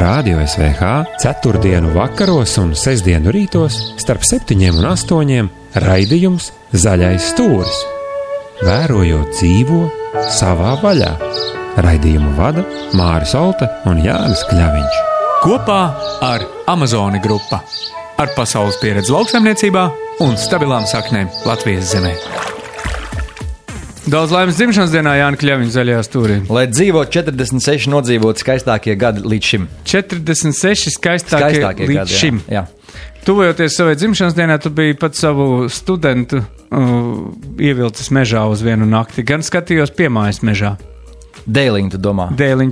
Radio SVH ceturtdienu vakaros un sestdienu rītos starp 7 un 8 raidījums Zaļais stūris. Vērojot dzīvo savā vaļā. Raidījumu vada Māris Olta un Jānis Kļaviņš. Kopā ar Amazoni grupa. Ar pasaules pieredzi lauksaimniecībā un stabilām saknēm Latvijas zemē. Daudz laimes dzimšanas dienā Jāņa Kļaviņa zaļajā stūrī. Lai dzīvo 46 nodzīvot skaistākie gadi līdz šim. 46 skaistākie līdz gadi, šim. Jā. Tuvojoties savai dzimšanas dienā, tu biji pat savu studentu ievilcis mežā uz vienu nakti. Gan skatījos piemājas mežā. Dēliņu, tu domā?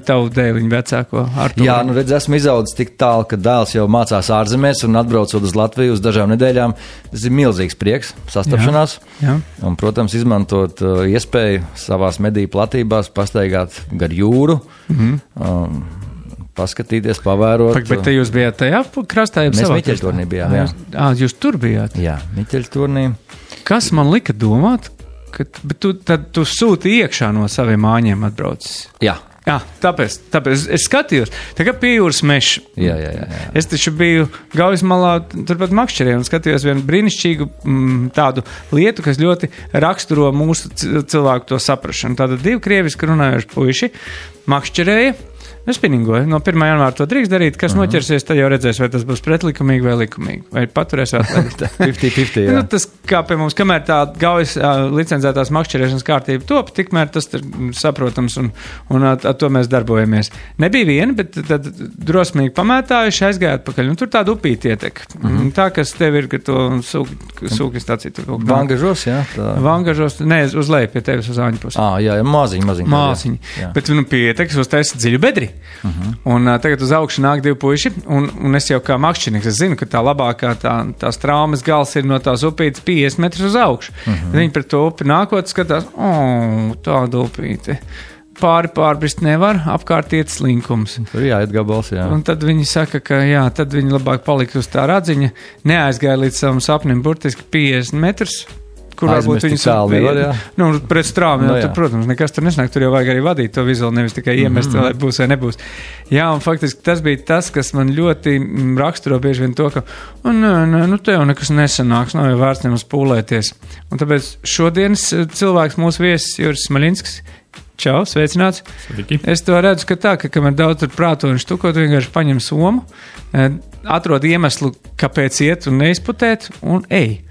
Tavu dēliņu vecāko Arturu. Jā, nu redz, esmu izaudzis tik tālu, ka dēls jau mācās ārzemēs un atbraucot uz Latviju uz dažām nedēļām. Tas ir milzīgs prieks, sastapšanās. Jā. Un, protams, izmantot iespēju savās mediju platībās pastaigāt gar jūru, paskatīties, pavērot. Bet te jūs bijāt tajā krastā? Mēs Miķeļturnī bijām, jā. Jūs tur bijāt? Jā, Miķeļturnī. Kas man lika domāt? Bet tu sūti iekšā no saviem māņiem atbraucis. Jā. Jā, tāpēc es skatījos, tā kā pie jūras mežs. Jā. Es taču biju Gaujas malā, turpat Makšķerē, un skatījos vienu brīnišķīgu tādu lietu, kas ļoti raksturo mūsu cilvēku to saprašanu. Tātad 2 krieviski runājoši puiši Makšķerēja. Es spinningoju. No 1. janvāra to drīkst darīt. Kas noķersies, tad jau redzēs, vai tas būs pretlikumīgi vai likumīgi. Vai paturēs atlaidīt. 50-50, jā. Nu, tas kā pie mums, kamēr tā Gaujas licencētās makšķerēšanas kārtība top, tikmēr tas ir saprotams un ar to mēs darbojamies. Nebija viena, bet tad drosmīgi pamētājuši aizgāja atpakaļ. Un tur tāda upīti ietek. Tā, kas tev ir, ka to sūki stāciju. Vangažos, jā. Vangažos, ne, uz leju pie tevis uz āņu pusi. Jā, maziņi. Bet pietek, es uztaisu dziļu bedri. Un tagad uz augšu nāk 2 puiši, un es jau kā makšķernieks, es zinu, ka tā labākā tās traumas gals ir no tās upītes 50 metrus uz augšu. Viņi pret to upi nākot skatās, tāda upīte. Pārbrist nevar, apkārt iet slinkums. Tur jāiet gabals, jā. Un tad viņi saka, ka jā, tad viņi labāk palika uz tā radziņa, neaizgāja līdz savam sapnim burtiski 50 metrus. Kur varbūt viņus nevar, jā. Nu, pret strāmu, tur, protams, nekas tur nesnāk, tur jau vajag arī vadīt to vizuāli, nevis tikai iemest, vai būs vai nebūs. Jā, un faktiski tas bija tas, kas man ļoti raksturo bieži vien to, ka, te jau nekas nesanāks, nav jau vērts nemaz pūlēties. Un tāpēc šodienas cilvēks mūsu viesis Juris Smaļinskis. Čau, sveicināts. Sveiki. Es to redzu, ka tā, ka kamēr daudz tur prāto un štukot, vienkārši paņem somu, atrod iemeslu, kāpēc iet un neizputēt, un ej.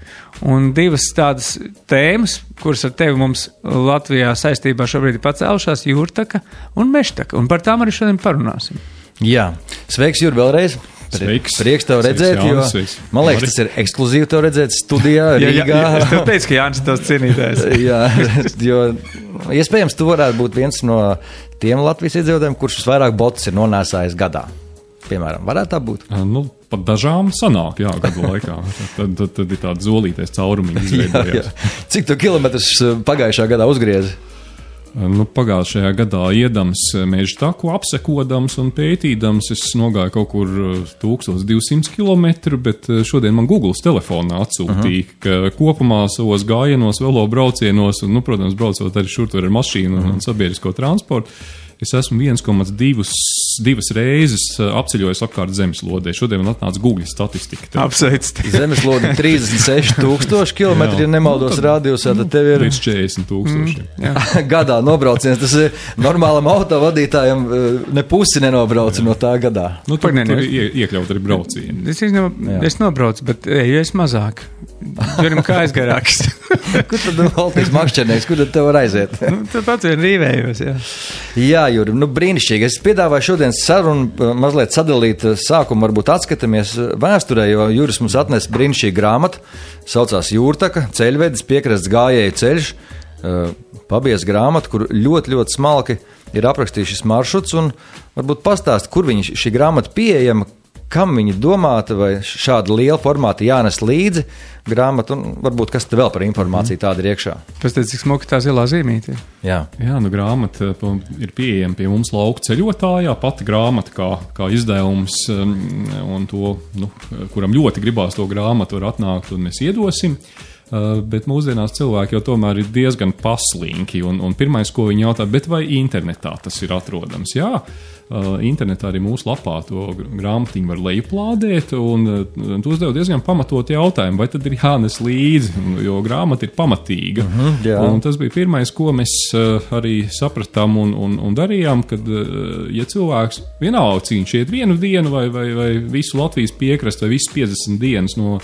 Un 2 tādas tēmas, kuras ar tevi mums Latvijā saistībā šobrīd ir pacēlušās, jūrtaka un mežtaka. Un par tām arī šodien parunāsim. Jā. Sveiks, Jur, vēlreiz. Prieks tev redzēt, Jānis, jo man liekas, tas ir ekskluzīvi tev redzēt studijā Rīgā. Es tev teicu, ka Jānis tos cienītājs. Jā, jo iespējams tu varētu būt viens no tiem Latvijas iedzīvotājiem, kurš visvairāk botus ir nonēsājis gadā. Piemēram, varētu tā būt? Nu, pat dažām sanāk, jā, gadu laikā. Tad ir tāda zolītais caurumīgi izveidojās. Cik tu kilometrus pagājušā gadā uzgriezi? Nu, pagājušajā gadā iedams meža taku, apsekodams un pētīdams, es nogāju kaut kur 1200 kilometru, bet šodien man Googles telefonā atsūtīja, ka kopumā savos gājienos, velo braucienos, un, protams, braucot arī šur tur ar mašīnu un sabiedrisko transportu, es esmu 1,2 reizes apceļojis apkārt zemeslodē. Šodien man atnāca Google statistika. Apsveic. Zemeslode 36,000 kilometri, ja nemaldos rādījusā, tad tev ir... Līdz 40,000. Gadā nobrauciens, tas ir normālam autovadītājam ne pusi nenobrauca no tā gadā. Nu, tur iekļaut arī braucienu. Es nobraucu, bet eju es mazāk. Turim kājas garāks. Kur tad valtīs makšķernieks, kur tad tev var aiziet? Tad pats vien rīvējos, jā. Jā, Juri, brīnišķīgi. Es piedāvāju šodien sarunu mazliet sadalīt sākumu, varbūt atskatāmies vēsturē, jo Juris mums atnes brīnišķīgu grāmatu, saucās Jūrtaka, ceļvedis, piekrasts gājēju ceļš, pabies grāmatu, kur ļoti, ļoti smalki ir aprakstījis šis maršruts, un varbūt pastāst, kur šī grāmata pieejama, kam viņi domāta, vai šāda liela formāta jānes līdzi grāmatu, un varbūt kas te vēl par informāciju tāda ir iekšā. Pēc teicu, cik smuka tā zilā zīmīte. Jā, grāmata ir pieejama pie mums lauku ceļotājā, pati grāmata kā izdevums, un to, kuram ļoti gribās to grāmatu, var atnākt, un mēs iedosim. Bet mūsdienās cilvēki jau tomēr ir diezgan paslinki, un pirmais, ko viņi jautā, bet vai internetā tas ir atrodams? Jā, internetā arī mūsu lapā to grāmatiņu var lejuplādēt, un tu uzdev diezgan pamatot jautājumu, vai tad ir jānes līdzi, jo grāmata ir pamatīga. Un tas bija pirmais, ko mēs arī sapratām un darījām, kad, ja cilvēks vienalga, cik viņš iet vienu dienu vai visu Latvijas piekrastu, vai visas 50 dienas no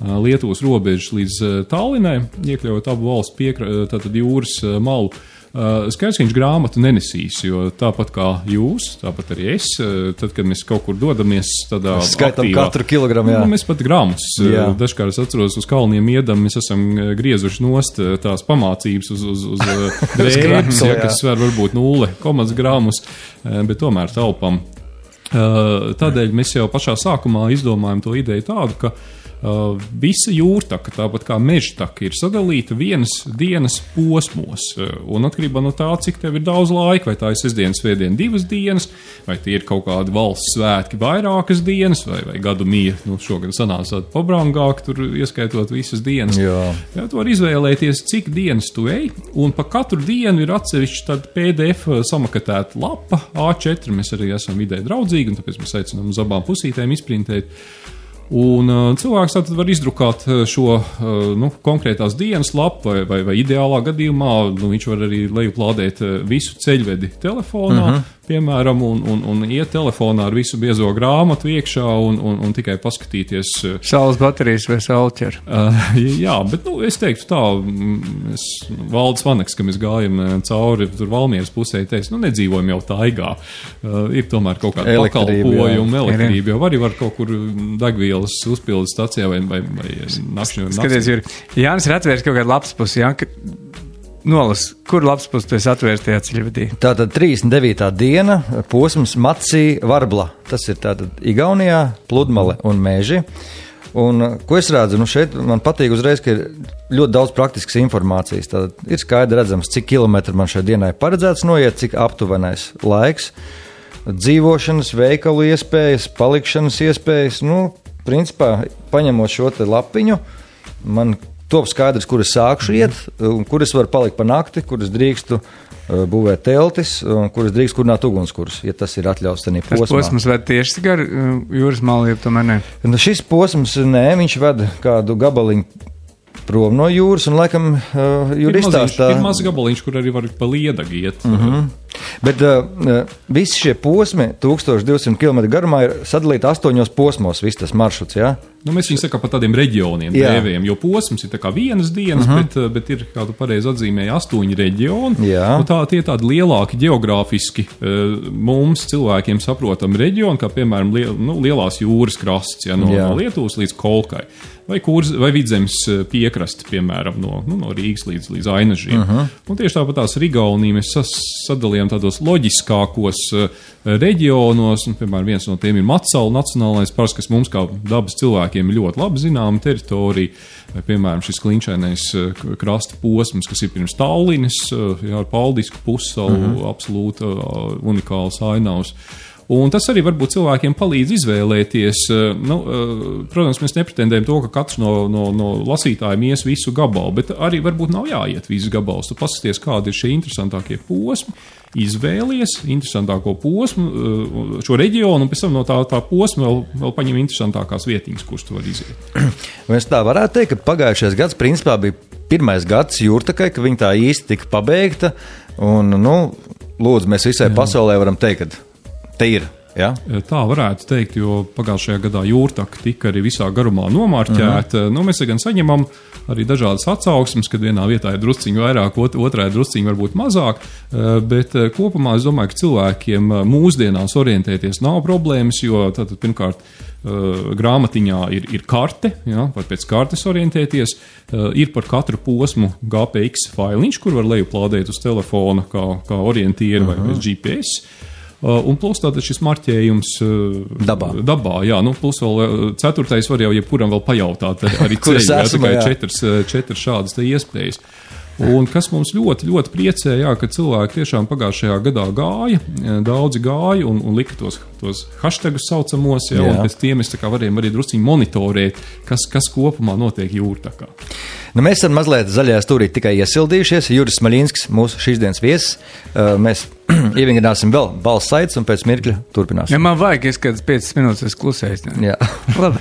Lietuvas robežas līdz Tallinai, iekļaujot abu valstu tātad jūras malu, skaidrs, ka viņš grāmatu nenesīs, jo tāpat kā jūs, tāpat arī es, tad, kad mēs kaut kur dodamies tādā skaitam aktīvā, katru kilogramu, jā. Mēs pat grāmatus, dažkārt es atceros uz kalniem iedam, mēs esam griezuši nost tās pamācības uz drēbes, kas sver varbūt 0 gramus, bet tomēr taupam. Tādēļ mēs jau pašā sākumā izdomājam to ideju tādu, ka visa jūrtaka, tāpat kā mežtaka, ir sadalīta vienas dienas posmos. Un atkarībā no tā, cik tev ir daudz laika, vai tā ir sestdiena, svētdiena 2 dienas, vai tie ir kaut kādi valsts svētki vairākas dienas, vai gadu mija, šogad sanāca pabrangāk, tur ieskaitot visas dienas. Jā, tu var izvēlēties, cik dienas tu ej, un pa katru dienu ir atsevišķi tāda PDF samakatēta lapa, A4, mēs arī esam vidē draudzīgi, un tāpēc mēs aicinām uz abām pusītēm izprintēt. Un cilvēks tātad var izdrukāt šo konkrētās dienas lapu vai ideālā gadījumā viņš var arī lejuplādēt visu ceļvedi telefonā, piemēram, un iet telefonā ar visu biezo grāmatu iekšā un tikai paskatīties. Saules baterijas vai saulķer? Jā, bet es teiktu tā, Valdis Vaneks, ka mēs gājam cauri tur Valmieras pusē, teica, nedzīvojam jau taigā. Ir tomēr kaut kāda pakalpojuma, elektrība, jo arī var kaut kur degvielas uzpildes stacijā vai nakšņu. Skaties, Juri, Jānis ir atvērs kaut kādu lapspusi, Nolas, kur lapspus tu esi atvērs tajā ceļvedī? Tātad 39. diena, posms Macī Varbla. Tas ir tātad Igaunijā, Pludmale un Meži. Un, ko es redzu, šeit man patīk uzreiz, ka ir ļoti daudz praktiskas informācijas. Tātad ir skaidri redzams, cik kilometri man šai dienai paredzēts noiet, cik aptuvenais laiks, dzīvošanas, veikalu iespējas, palikšanas iespējas. Principā, paņemot šo te lapiņu, man top skaidrs, kur es sākšu iet, un kur es varu palikt pa nakti, kur es drīkstu būvēt teltis, un kur es drīkstu kurināt ugunskurs, ja tas ir atļauts tanī posmā. Tas posms ved tieši gar jūras malu, ja tomēr ne? Šis posms, viņš ved kādu gabaliņu prom no jūras, un laikam Juri izstāstā. Ir maz gabaliņš, kur arī var pa Liedagu iet. Bet visi šie posmi 1200 km garumā ir sadalīti 8 posmos, viss tas maršruts, jā? Mēs viņu sakām par tādiem reģioniem dēvējam, jo posms ir tā kā vienas dienas, bet ir, kā tu pareizi atzīmēji, 8 reģioni. Tie ir tādi lielāki geogrāfiski mums cilvēkiem saprotami reģioni, kā piemēram lielās jūras krasts, no Lietuvas līdz Kolkai. Vai Vidzemes piekrasti, piemēram, no Rīgas līdz Ainažiem. Un tieši tāpat tās Igauniju mēs sadalījām tādos loģiskākos reģionos, un, piemēram, viens no tiem ir Matsalu nacionālais parks, kas mums kā dabas cilvēkiem ir ļoti labi zināma teritorija, vai, piemēram, šis klinšainais krasta posms, kas ir pirms Tallinas, ar Paldisku pussalu, absolūti unikāls ainavs. Un tas arī varbūt cilvēkiem palīdz izvēlēties. Protams, mēs nepretendējam to, ka katrs no lasītājiem ies visu gabalu, bet arī varbūt nav jāiet visu gabalus. Tu paskaties, kādi ir šie interesantākie posmi, izvēlies interesantāko posmu, šo reģionu, un pēc tam no tā posma vēl paņem interesantākās vietiņas, kuras tu vari iziet. Mēs tā varētu teikt, ka pagājušais gads principā bija pirmais gads jūrtakai, ka viņa tā īsti tika pabeigta, un, lūdzu, mēs visai pasaulē varam teikt, ka te ir. Ja? Tā varētu teikt, jo pagājušajā gadā jūrtaka tika arī visā garumā nomārķēta. Mēs gan saņemam arī dažādas atsauksmes, kad vienā vietā ir drusciņi vairāk, otrā ir drusciņi varbūt mazāk, bet kopumā es domāju, ka cilvēkiem mūsdienās orientēties nav problēmas, jo tātad pirmkārt grāmatiņā ir karte, var pēc kartes orientēties, ir par katru posmu GPX failiņš, kur var lejuplādēt uz telefona kā orientieru vai pēc GPS. Un plus tātad šis marķējums dabā, plus vēl 4. var jau jebkuram vēl pajautāt arī ceļu, tikai 4 šādas te iespējas. Un kas mums ļoti, ļoti priecē, jā, ka cilvēki tiešām pagājušajā gadā gāja, daudzi gāja un lika tos hashtagus saucamos, jā, un pēc tiem mēs tā kā varējām arī drusciņi monitorēt, kas kopumā notiek Jūrtakā. Nu, mēs esam mazliet zaļajā stūrī tikai iesildījušies. Juris Smaļinskis, mūsu šīs dienas viesis. Mēs ievingrināsim vēl balss saites un pēc mirkļa turpināsim. Ja man vajag, es kādas 5 minūtes es klusēs. Jā. Labi.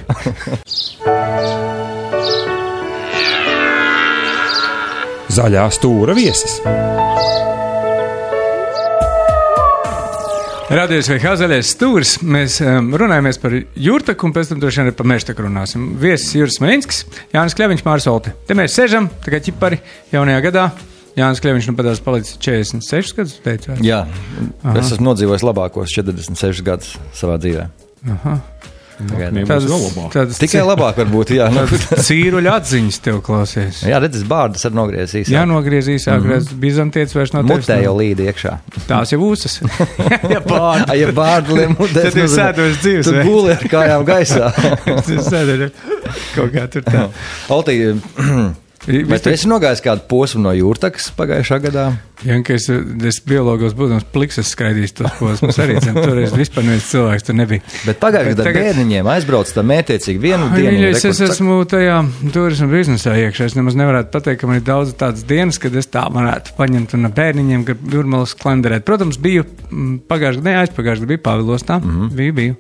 Zaļā stūra viesis. Radies vai Zaļais stūris. Mēs runājamies par Jūrtaku un pēc tam droši vien arī par Mežtaku runāsim. Viesis Juris Smaļinskis, Jānis Kļaviņš, Māris Olte. Te mēs sežam, tā kā ķipari jaunajā gadā. Jānis Kļaviņš padās palicis 46 gadus, teicu. Jā, es esmu nodzīvojis labākos 46 gadus savā dzīvē. Aha. Tādas tikai labāk varbūt, jā. Cīruļa atziņas tev klausies. Jā, redzes bārdas ar nogriezīs. Jā, nogriezīs, bizantietis vairs no tevis. Mutē jau līdi iekšā. Tās jau uzas. Ja bārda. Ja bārda liem mutēs. Tad ir sēdos dzīves. Tu guli ar kājām gaisā. Sēdos kaut kā tur tā. Oltī, vai tu esi nogājis kādu posmu no Jūrtakas pagājušā gadā? Ja, ka es biologos būdams pliksas skraidījis tos posmus arī, toreiz vispār neviens cilvēks tur nebija. Bet pagājušajā gadā bērniņiem aizbrauc tā mētiecīgi vienu dienu. Es esmu tajā turismu biznesā iekšā. Es nemaz nevarētu pateikt, ka man ir daudz tādas dienas, kad es tā varētu paņemt un ar bērniņiem, kad Jūrmalas klanderēt. Protams, biju aizpagājušajā gadā biju Pāvilostā, biju.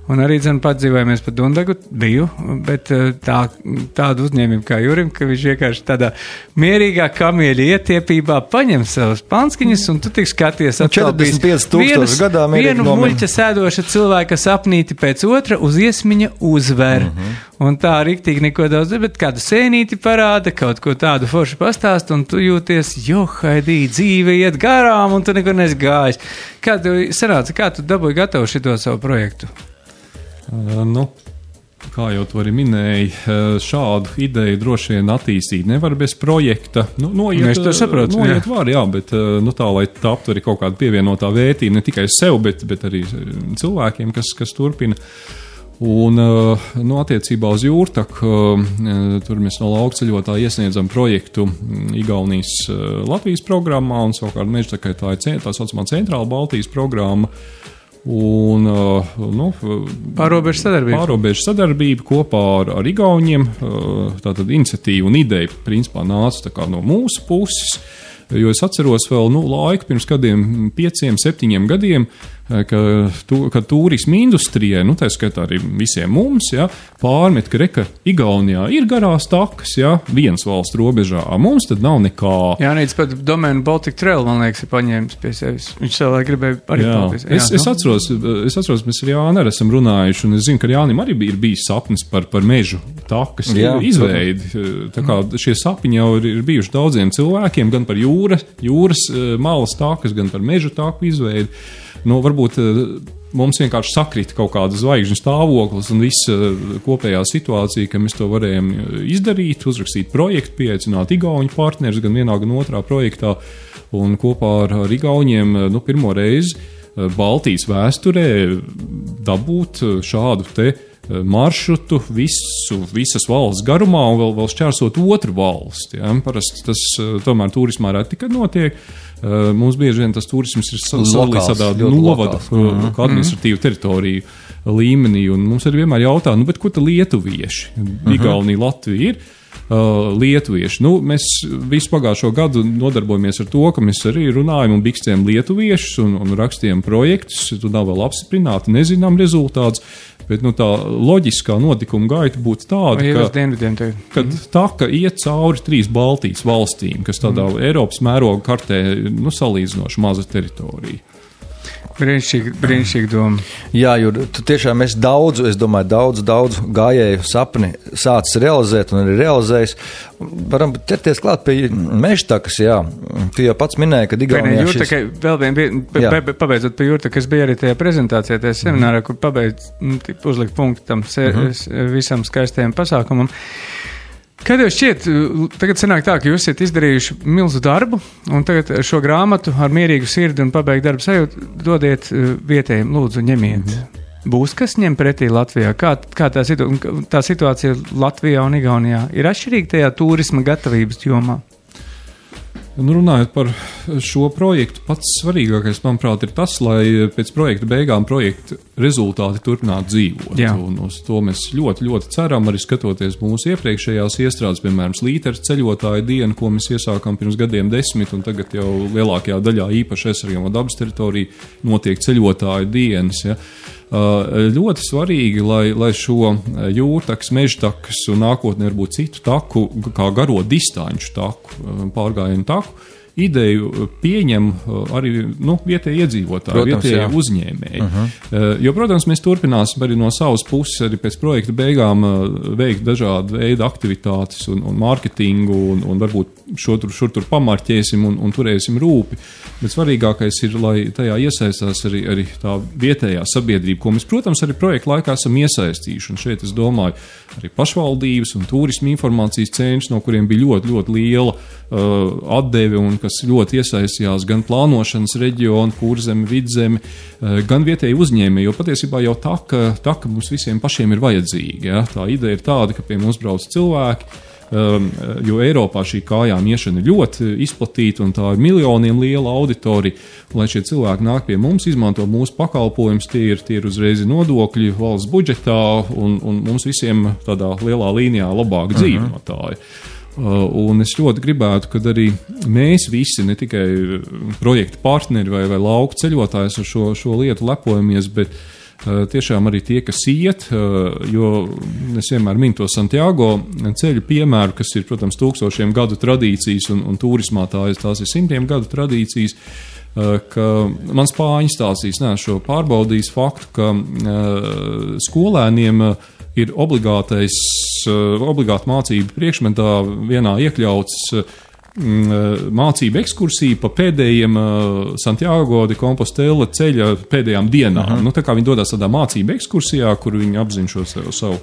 Un arī padzīvojamies pa Dundagu, biju, bet tādu uzņēmību kā Jurim, ka viņš vienkārši tādā mierīgā kamieļa ietiepībā paņem savas panskiņas, un tu tik skaties atkal 45,000 gadā vienu muļķa sēdoša cilvēka sapnīti pēc otra uz iesmiņa uzver. Un tā riktīgi neko daudz, bet kādu sēnīti parāda, kaut ko tādu forši pastāst, un tu jūties, haidī, dzīve iet garām, un tu neko nesi gājis. Kā tev sanāca, kā tu dabūji gatavu šito savu projektu? Kā jau tu arī minēji, šādu ideju droši vien attīstīt nevar bez projekta. Mēs to saprotam. Noiet var, jā, bet tā, lai taptu arī kaut kāda pievienotā vērtība ne tikai sev, bet arī cilvēkiem, kas turpina. Un, attiecībā uz Jūrtaku, tur mēs no laukceļotāja iesniedzam projektu Igaunijas Latvijas programmā, un savukārt Mežtakai tā ir tā saucamā centrāla Baltijas programma. Un pārobežu sadarbība kopā ar Igauniem, tātad iniciatīva un ideja principā nāca tā kā no mūsu puses, jo es atceros vēl laiku pirms kādiem 5-7 gadiem, kad turisma industrijai, tā skaitā arī visiem mums, pārmet, ka Igaunijā ir garās takas, viens valsts robežā, mums tad nav nekā. Jānīts pat domēnu Baltic Trail, man liekas, ir paņēmis pie sevis. Viņš savā gribēja arī paldies. Es atceros, mēs ar Jāni arī esam runājuši, un es zinu, ka Jānim arī ir bijis sapnis par mežu takas izveidi. Tā kā šie sapņi jau ir bijuši daudziem cilvēkiem, gan par jūras malas takas, gan par mežu taku izveidi. Varbūt mums vienkārši sakrita kaut kāda zvaigžņu stāvoklis un visa kopējā situācija, ka mēs to varējām izdarīt, uzrakstīt projektu, pieaicināt igauņu partnerus gan vienā, gan otrā projektā, un kopā ar igauņiem pirmo reizi Baltijas vēsturē dabūt šādu te maršrutu visas valsts garumā un vēl šķērsot otru valsti. Parasti tas tomēr turismā reti, kad notiek. Mums bieži vien tas turisms ir sadalīts tādā novada, administratīvu teritoriju līmenī, un mums arī vienmēr jautā, bet ko tad lietuvieši? Igaunija, Latvija ir lietuvieši. Mēs visu pagājušo gadu nodarbojamies ar to, ka mēs arī runājam un bikstējam lietuviešus un rakstījam projektus, tu nav vēl apstiprināti, nezinām rezultātus, bet tā loģiskā notikuma gaita būtu tāda, ka taka iet cauri 3 Baltijas valstīm, kas tādā Eiropas mēroga kartē salīdzinoši maza teritorija. Brīnišķīgi doma. Jā, jo tu tiešām esi daudz gājēju sapni sācis realizēt un arī realizējis. Varam ķerties klāt pie Mežtakas, jā. Tu jau pats minēji, ka Igaunijā šis... Pabeidzot pie Jūrtakas, es biju arī tajā prezentācijā, tajā seminārā, kur uzlikt punktu tam visam skaistajam pasākumam. Kā tev šķiet, tagad sanāk tā, ka jūs esat izdarījuši milzu darbu, un tagad šo grāmatu ar mierīgu sirdi un pabeigt darbu sajūtu dodiet vietējiem, lūdzu, ņemiet. Būs kas ņem pretī Latvijā? Kā tā situācija Latvijā un Igaunijā ir atšķirīga tajā turisma gatavības jomā? Runājot par šo projektu, pats svarīgākais, manuprāt, ir tas, lai pēc projekta beigām projekta rezultāti turpinātu dzīvot. Jā. Un uz to mēs ļoti, ļoti ceram, arī skatoties mūsu iepriekšējās iestrādes, piemēram, Slīteres ceļotāju dienu, ko mēs iesākām pirms gadiem 10, un tagad jau lielākajā daļā īpaši aizsargājamo dabas teritoriju notiek ceļotāju dienas. Ja. Ļoti svarīgi, lai šo jūrtakas, mežtakas un nākotnē varbūt citu taku, kā garo distanču taku, pārgājienu taku, ideju pieņem arī vietēji iedzīvotāji, Protams, vietēji jā. uzņēmēji. Jo, protams, mēs turpināsim arī no savas puses arī pēc projekta beigām veikt dažādu veidu aktivitātes un mārketingu un varbūt šur tur pamarķēsim un turēsim rūpi. Bet svarīgākais ir, lai tajā iesaistās arī tā vietējā sabiedrība, ko mēs, protams, arī projekta laikā esam iesaistījuši. Un šeit es domāju arī pašvaldības un turisma informācijas centrs, no kuriem bija ļoti, ļoti liela atdeve un kas ļoti iesaistījās gan plānošanas reģionu, Kurzemi, Vidzemi, gan vietēji uzņēmēji, jo patiesībā jau taka mums visiem pašiem ir vajadzīga. Ja? Tā ideja ir tāda, ka pie mums brauc cilvēki, jo Eiropā šī kājām iešana ir ļoti izplatīta un tā ir miljoniem liela auditorija. Lai šie cilvēki nāk pie mums, izmanto mūsu pakalpojumus, tie ir uzreiz nodokļi valsts budžetā un mums visiem tādā lielā līnijā labāk dzīve no tā ir. Un es ļoti gribētu, kad arī mēs visi, ne tikai projekta partneri vai lauku ceļotājs ar šo lietu lepojamies, bet tiešām arī tie, kas iet, jo es vienmēr minu to Santiago ceļu piemēru, kas ir, protams, tūkstošiem gadu tradīcijas un turismā tās ir simtiem gadu tradīcijas, ka man spāņu stāstīs, šo pārbaudījis faktu, ka skolēniem ir obligāta mācība priekšmetā vienā iekļauts mācību ekskursija pa pēdējiem Santiago de Compostela ceļa pēdējām dienām. Tā kā viņi dodas tādā mācību ekskursijā, kur viņi apzina šo savu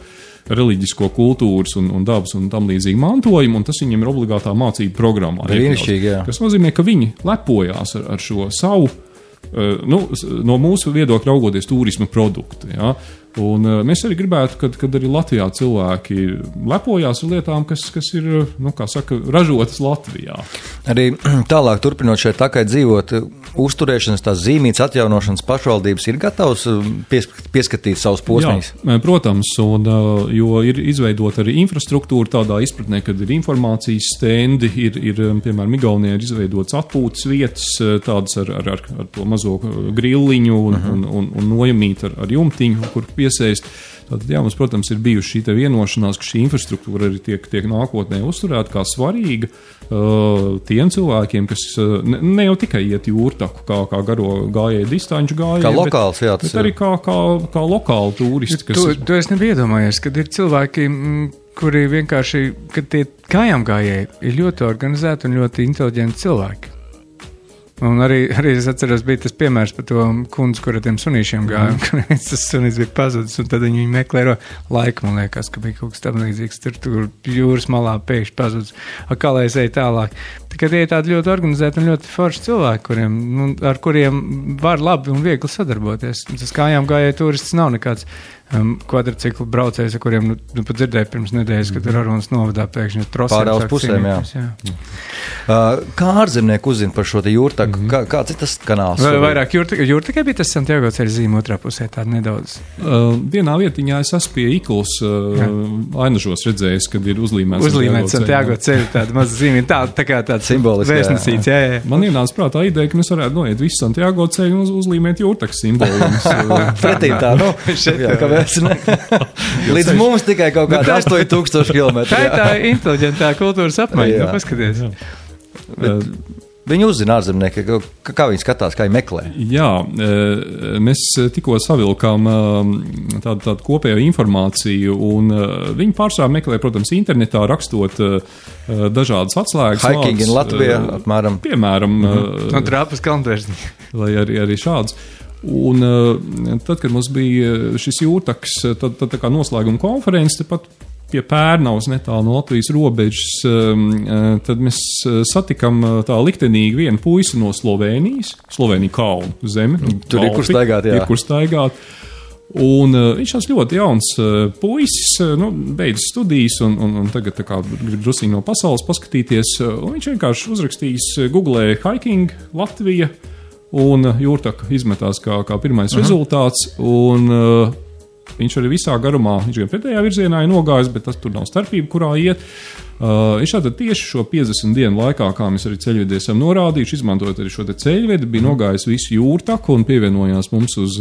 reliģisko kultūras un dabas un tam līdzīgi mantojumu, un tas viņiem ir obligātā mācību programmā. Brīnišķīgi, jā. Tas nozīmē, ka viņi lepojās ar šo savu, no mūsu viedokļa raugoties turisma produktu. Ja? Un mēs arī gribētu, kad arī Latvijā cilvēki lepojās ar lietām, kas ir, ražotas Latvijā. Arī tālāk turpinot šeit takai dzīvot, uzturēšanas, tās zīmītas atjaunošanas pašvaldības ir gatavs pieskatīt savus posmīs? Jā, protams, jo ir izveidota arī infrastruktūra tādā izpratnē, kad ir informācijas stendi, ir piemēram, Igaunijā ir izveidotas atpūtas vietas, tādas ar to mazo grilliņu un nojamīt ar jumtiņu, kur piesaist. Tātad, jā, mums, protams, ir bijuši šī vienošanās, ka šī infrastruktūra arī tiek nākotnē uzturēta kā svarīga tiem cilvēkiem, kas ne jau tikai iet jūrtaku, kā garo gājēju distanču gājēju, kā lokāls, jā, bet arī kā lokāli turisti. To es nebiju iedomājies, kad ir cilvēki, kuri vienkārši, kad tie kājām gājēji ir ļoti organizēti un ļoti inteliģenti cilvēki. Un arī es atceros, bija tas piemērs par to kundzi, kur ar tiem sunīšiem gāja, un tas sunīs bija pazudis, un tad viņi meklē laiku, man liekas, ka bija kaut kas tam līdzīgs, tur jūras malā pēkšņi pazudis, kā lai es eju tālāk. Tikai tie ir tādi ļoti organizēti un ļoti forši cilvēki, ar kuriem var labi un viegli sadarboties. Tas kājām gājēja turists nav nekāds kvadriciklu braucējs, ar kuriem pat dzirdēju pirms nedēļas, kad tur Arunas novadā pēkšņi trosēm. Pārāls pusēm, jā. Kā ārzemnieku uzzina par šo te jūrtaku? Kāds ir tas kanāls? Vairāk jūrtakai bija tas Santiago ceļa zīme otrā pusē, tāda nedaudz. Vienā vietiņā es esmu pie Ikls ainažos redzējis, kad ir uzlīmēts Santiago ceļa, tāda maza zīme, tā kā tāds vēstnesīts, jā. Man ienāca prātā ideja, ka mēs varētu noiet visu Santiago ceļu un uzlīmēt jūrtakas simbolumus. Pretī tā, līdz mums tikai kaut kādi 8000 km. Tā ir tā inteliģentā kultūras apmaiņa, paskaties. Viņi uzzina ārzemnieki, kā viņi skatās, kā viņi meklē. Jā, mēs tikko savilkām tādu kopējo informāciju, un viņi pārsvarā meklē, protams, internetā rakstot dažādas atslēgas. Hiking in Latvijā, apmēram. Piemēram. Un trāpas kalntvērsni. Vai arī šāds. Un tad, kad mums bija šis jūrtaks, tad tā kā noslēguma konferences, pat pie Pērnavas netālu no Latvijas robežas, tad mēs satikam tā liktenīgi vienu puisi no Slovēnijas, Slovēnija kalnu zemi. Tur ir kur staigāt, jā. Ir kur staigāt. Un viņš ir ļoti jauns puisis, beidzis studijas un tagad tā kā grib drusīgi no pasaules paskatīties. Un viņš vienkārši uzrakstījis Google hiking Latvija un Jūrtaka izmetās kā pirmais rezultāts. Un viņš arī visā garumā, viņš gan pretējā virzienā ir nogājis, bet tur nav starpība, kurā iet. Viņš tātad tieši šo 50 dienu laikā, kā mēs arī ceļvedī esam norādījuši, izmantojot arī šo te ceļvedi, bija nogājis visu Jūrtaku un pievienojās mums uz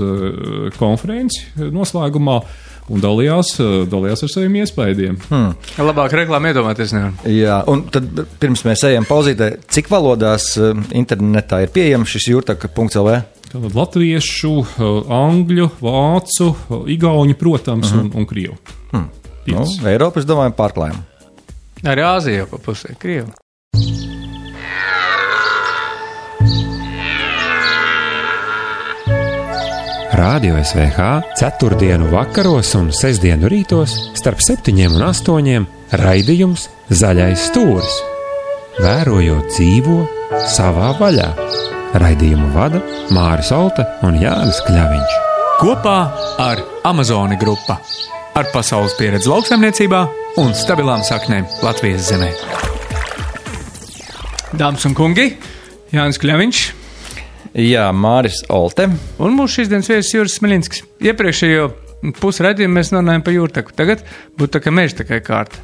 konferenci noslēgumā un dalījās ar saviem iespējiem. Labāk reklāmu iedomāties nevar. Jā, un tad pirms mēs ejam pauzītē, cik valodās internetā ir pieejams šis jūrtaka.lv? Tātad latviešu, angļu, vācu, igauņu, protams, un krievu. Eiropa, es domāju, pārklājam. Arī Āzija pa pusē, Krievu. Radio SVH 4. vakaros un 6. rītos starp 7 un 8 raidījums Zaļais stūris. Vērojot dzīvo savā vaļā. Raidījumu vada Māris Olte un Jānis Kļaviņš. Kopā ar Amazoni grupa. Ar pasaules pieredzi lauksaimniecībā un stabilām saknēm Latvijas zemē. Dāmas un kungi, Jānis Kļaviņš. Jā, Māris Olte. Un mūsu šīs dienas viesis Juris Smiļinskis. Iepriekšējo pusraidījumu mēs runājam par Jūrtaku. Tagad būtu tā kā mežtakai kārta.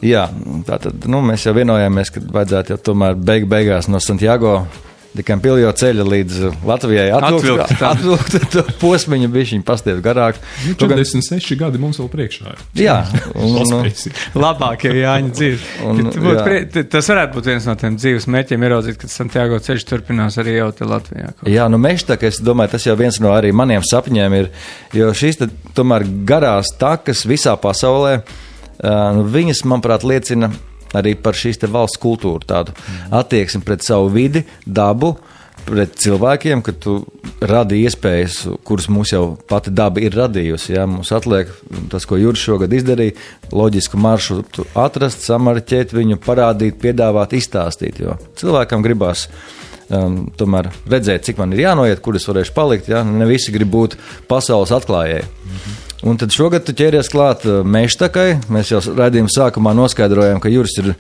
Jā, tātad, mēs jau vienojāmies, ka vajadzētu jau tomēr beigās no Santiago de Campillo ceļa līdz Latvijai atvilkt to posmiņu, bišķiņu pastiet garāk. 46 gadi mums vēl priekšā. Jā. Labākie Jāņa dzīves. Tas varētu būt viens no tiem dzīves mērķiem ieraudzīt, kad Santiago ceļš turpinās arī jau te Latvijā. Jā, mežtaka, es domāju, tas jau viens no arī maniem sapņiem ir, jo šīs tomēr garās takas visā pasaulē, viņas, manuprāt, liecina arī par šīs te valsts kultūru, tādu attieksmi pret savu vidi, dabu, pret cilvēkiem, ka tu radi iespējas, kuras mums jau pati daba ir radījusi. Jā, mums atliek tas, ko Juris šogad izdarīja, loģisku maršrutu atrast, samarķēt viņu, parādīt, piedāvāt, izstāstīt, jo cilvēkam gribās tomēr redzēt, cik man ir jānoiet, kur es varēšu palikt, jā, ne visi grib būt pasaules atklājēji. Un tad šogad tu ķēries klāt mežtakai. Mēs jau raidījuma sākumā noskaidrojām, ka Juris ir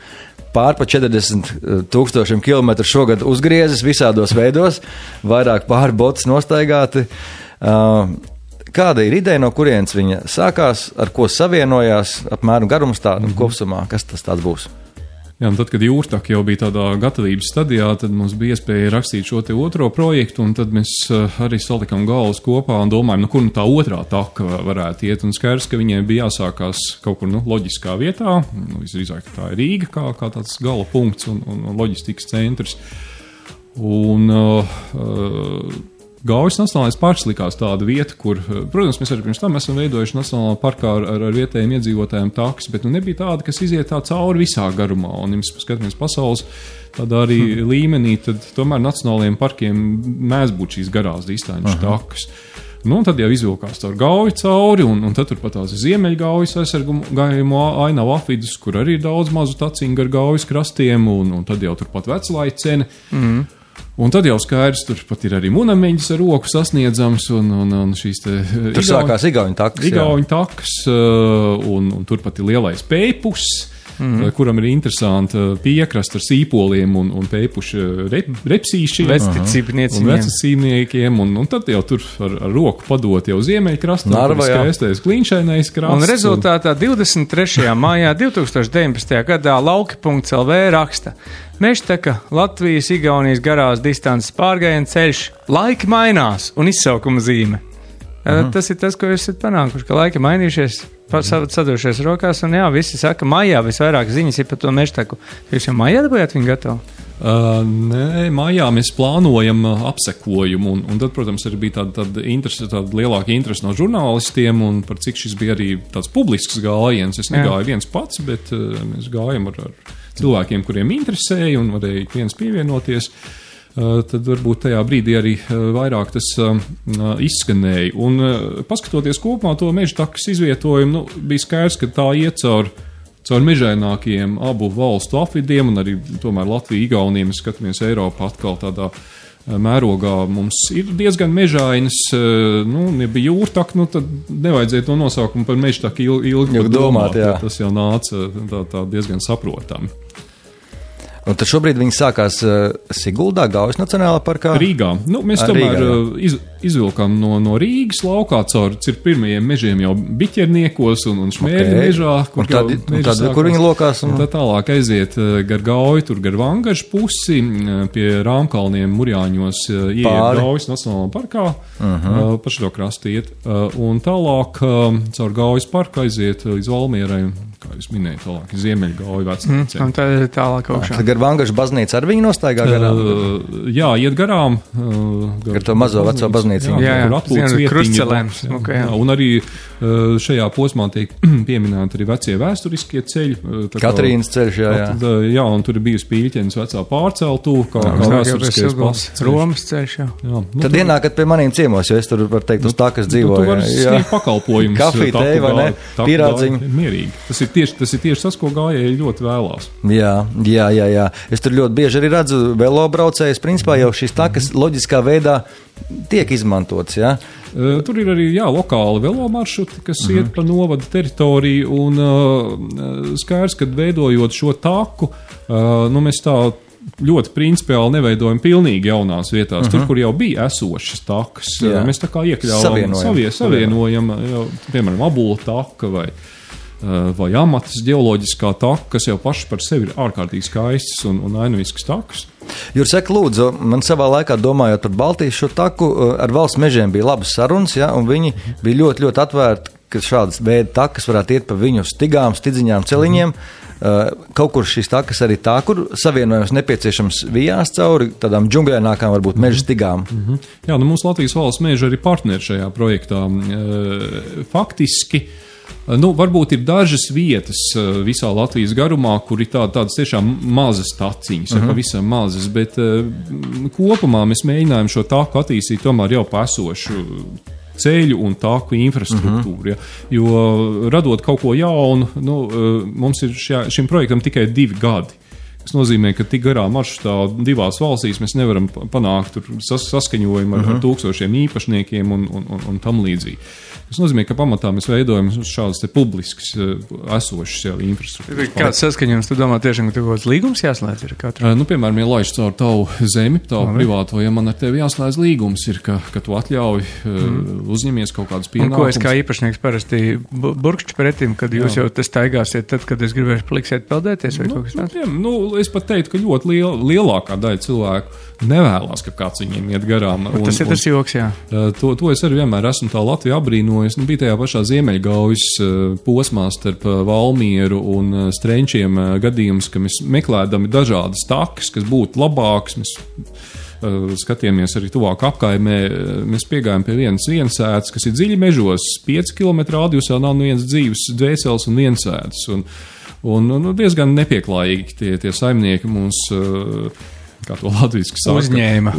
pār pa 40,000 kilometru šogad uzgriezis visādos veidos, vairāk pāri botas nostaigāti. Kāda ir ideja, no kurienes viņa sākās, ar ko savienojās, apmēram garums tādu kopsumā, kas tas tāds būs? Jā, un tad, kad Jūrtaka jau bija tādā gatavības stadijā, tad mums bija iespēja rakstīt šo te otro projektu, un tad mēs arī salikām galvas kopā un domājam, kur tā otrā taka varētu iet. Un skaidrs, ka viņiem bija jāsākās kaut kur loģiskā vietā. Visdrīzāk tā ir Rīga kā tāds gala punkts un loģistikas centrs. Un Gaujas Nacionālais parks likās tāda vieta, kur, protams, mēs arī pirms tam esam veidojuši Nacionālā parkā ar vietējiem iedzīvotājiem takas, bet nebija tāda, kas iziet tā cauri visā garumā. Un, ja mēs skatāmies pasaules tādā arī līmenī, tad tomēr Nacionālajiem parkiem mēdz būt šīs garās distanču takas. Un tad jau izvilkās caur Gauju cauri, un tad turpat tās ir Ziemeļgaujas aizsargājumu ainavu apvidus, kur arī ir daudz mazu taciņu gar Gaujas krastiem, un tad jau turpat Veclaicene. Un tad jau skaidrs, tur pat ir arī Munameņģis ar roku sasniedzams, un šīs te... Tur sākās Igauņu takas. Igauņu takas, un turpat ir lielais Pēpus, kuram ir interesanti piekrast ar sīpoliem un pēpuši repsīšiem. Vecticībniekiem, un tad jau tur ar roku padot jau Ziemeļkrastam, kur skaistais kliņšainais krasts. Un rezultātā 23. maijā 2019. gadā lauki.lv raksta: Mežtaka, Latvijas, Igaunijas garās distances pārgājiena ceļš, laiki mainās un izsaukuma zīme. Tas ir tas, ko jūs esat panākuši, ka laiki mainījušies, sadošies rokās, un jā, visi saka, maijā visvairāk ziņas ir par to Mežtaku. Jūs jau maijā dabūjāt viņu gatavu? Nē, maijā mēs plānojam apsekojumu, un tad, protams, arī bija tāda lielāka interese no žurnālistiem, un par cik šis bija arī tāds publisks gājiens. Es negāju viens pats, bet mēs gājam ar cilvēkiem, kuriem interesēja, un varēja viens pievienoties. Tad varbūt tajā brīdī arī vairāk tas izskanēja. Un paskatoties kopumā to mežtakas izvietojumu, bija skaidrs, ka tā iet caur mežainākiem abu valstu apvidiem, un arī tomēr Latvija, Igaunija, mēs skatāmies Eiropā atkal tādā mērogā mums ir diezgan mežainas, ja bija jūrtaka, tad nevajadzēja to nosaukumu par mežtaku ilgi domāt. Tas jau nāca tā diezgan saprotami. Un tad šobrīd viņi sākās Siguldā, Gaujas Nacionālā parkā? Rīgā. Mēs tomēr izvilkām no Rīgas laukā caur pirmajiem mežiem jau biķerniekos un šmērļu mežā. Kur viņi lokās? Un tad tālāk aiziet gar Gauju, tur gar Vangažu pusi, pie Rāmkalniem Murjāņos ieiet Gaujas Nacionālā parkā, pa šo krastu iet. Un tālāk caur Gaujas parku aiziet līdz Valmierai, kā jūs minējat, tālāk Ziemeļgauju vecnīcē. Un tad ir tālāk augšā. Gar Vangažu baznīcu ar viņu nostaigā garām? Jā, iet garām. Gar to mazo veco baznīcu. Jā, krustcelēms. Un arī šajā posmā tiek pieminēti arī vecie vēsturiskie ceļi. Katrīnas ceļš, jā, un tur ir bijusi Pīļķenes vecā pārceltū, kā vēsturiskais pasceļš. Romas ceļš, jā. Tad ienākat pie maniem ciemos, jo es tur, var teikt, uz tā, kas dzīvoju. Tu vari sniegt pakalpojumus. Kafiju, teju, vai ne? Pīrādziņu. Mierīgi. Tas ir tieši tas, ko gājēji ļoti vēlās. Jā. Es tur ļoti bieži arī redzu velobraucējus. Principā jau šīs takas loģiskā veidā tiek izmantotas, jā? Tur ir arī, lokāli velomaršruti, kas iet pa novada teritoriju, un skaidrs, kad veidojot šo taku, mēs tā ļoti principiāli neveidojam pilnīgi jaunās vietās. Tur, kur jau bija esošas takas, mēs tā kā iekļaujam, savienojam, piemēram, Abula taka vai Amatas ģeoloģiskā taka, kas jau paši par sevi ir ārkārtīgi skaistas un ainavīskas takas. Jūras, saka, lūdzu, man savā laikā domājot par Baltijas šo taku, ar valsts mežiem bija labas sarunas, un viņi bija ļoti, ļoti atvērti, ka šādas veida takas varētu iet pa viņu stigām, stidziņām, celiņiem. Kaut kur šīs takas arī tā, kur savienojums nepieciešams vijās cauri tādām džungļainākām, varbūt meža stigām. Jā, mums Latvijas valsts meža arī partneri šajā projektā. Faktiski, varbūt ir dažas vietas visā Latvijas garumā, kur ir tādas tiešām mazas taciņas, pavisam mazas, bet kopumā mēs mēģinājām šo taku attīstīt tomēr jau pa esošu ceļu un tāku infrastruktūru. Jo radot kaut ko jaunu, mums ir šim projektam tikai 2 gadi. Tas nozīmē, ka tik garā maršrutā 2 valstīs mēs nevaram panākt saskaņojumu ar tūkstošiem īpašniekiem un tam līdzīgi. Tas nozīmē, ka pamatā mēs veidojam šādas publiskas esošas infrastruktūras. Kāds saskaņojums, tu domā tiešām, ka tev kaut kāds līgums jāslēdz ir katru? Piemēram, ja laiž caur tavu zemi, tavu privāto, ja man ar tevi jāslēdz līgums ir, ka tu atļauj uzņemies kaut kādas pienākumus. Un ko es kā īpašnieks parasti burkšķi pretim, kad jūs jau tas taigāsiet, tad, kad es gribēšu paliksiet peldēties vai kaut kas tāds? Es pat teiktu, ka ļoti lielākā daļa cilvēku nevēlas, ka kāds viņiem iet garām. Tas ir tas joks, jā. To es arī vienmēr esmu tā Latviju apbrīnojis. Bija tajā pašā Ziemeļgaujas posmā starp Valmieru un Strenčiem gadījums, ka mēs meklējam dažādas takas, kas būtu labākas. Mēs skatījāmies arī tuvāk apkaimē. Mēs piegājām pie vienas viensētas, kas ir dziļi mežos, 5 km radiusā nav viens dzīves dvēseles un viensētas. Un diezgan nepieklājīgi tie saimnieki mums, kā to latviski saka, uzņēma.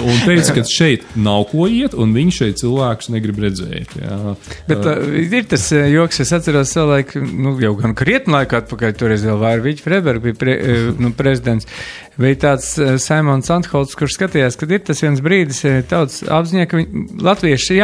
Un teica, ka šeit nav ko iet, un viņi šeit cilvēkus negrib redzēt. Jā. Bet ir tas joks, es atceros savulaik, jau gan krietni laiku atpakaļ, toreiz vēl Vārviģi Freiberg bija prezidents, bija tāds Saimons Antholts, kurš skatījās, kad ir tas viens brīdis tautas apziņā, ka latvieši,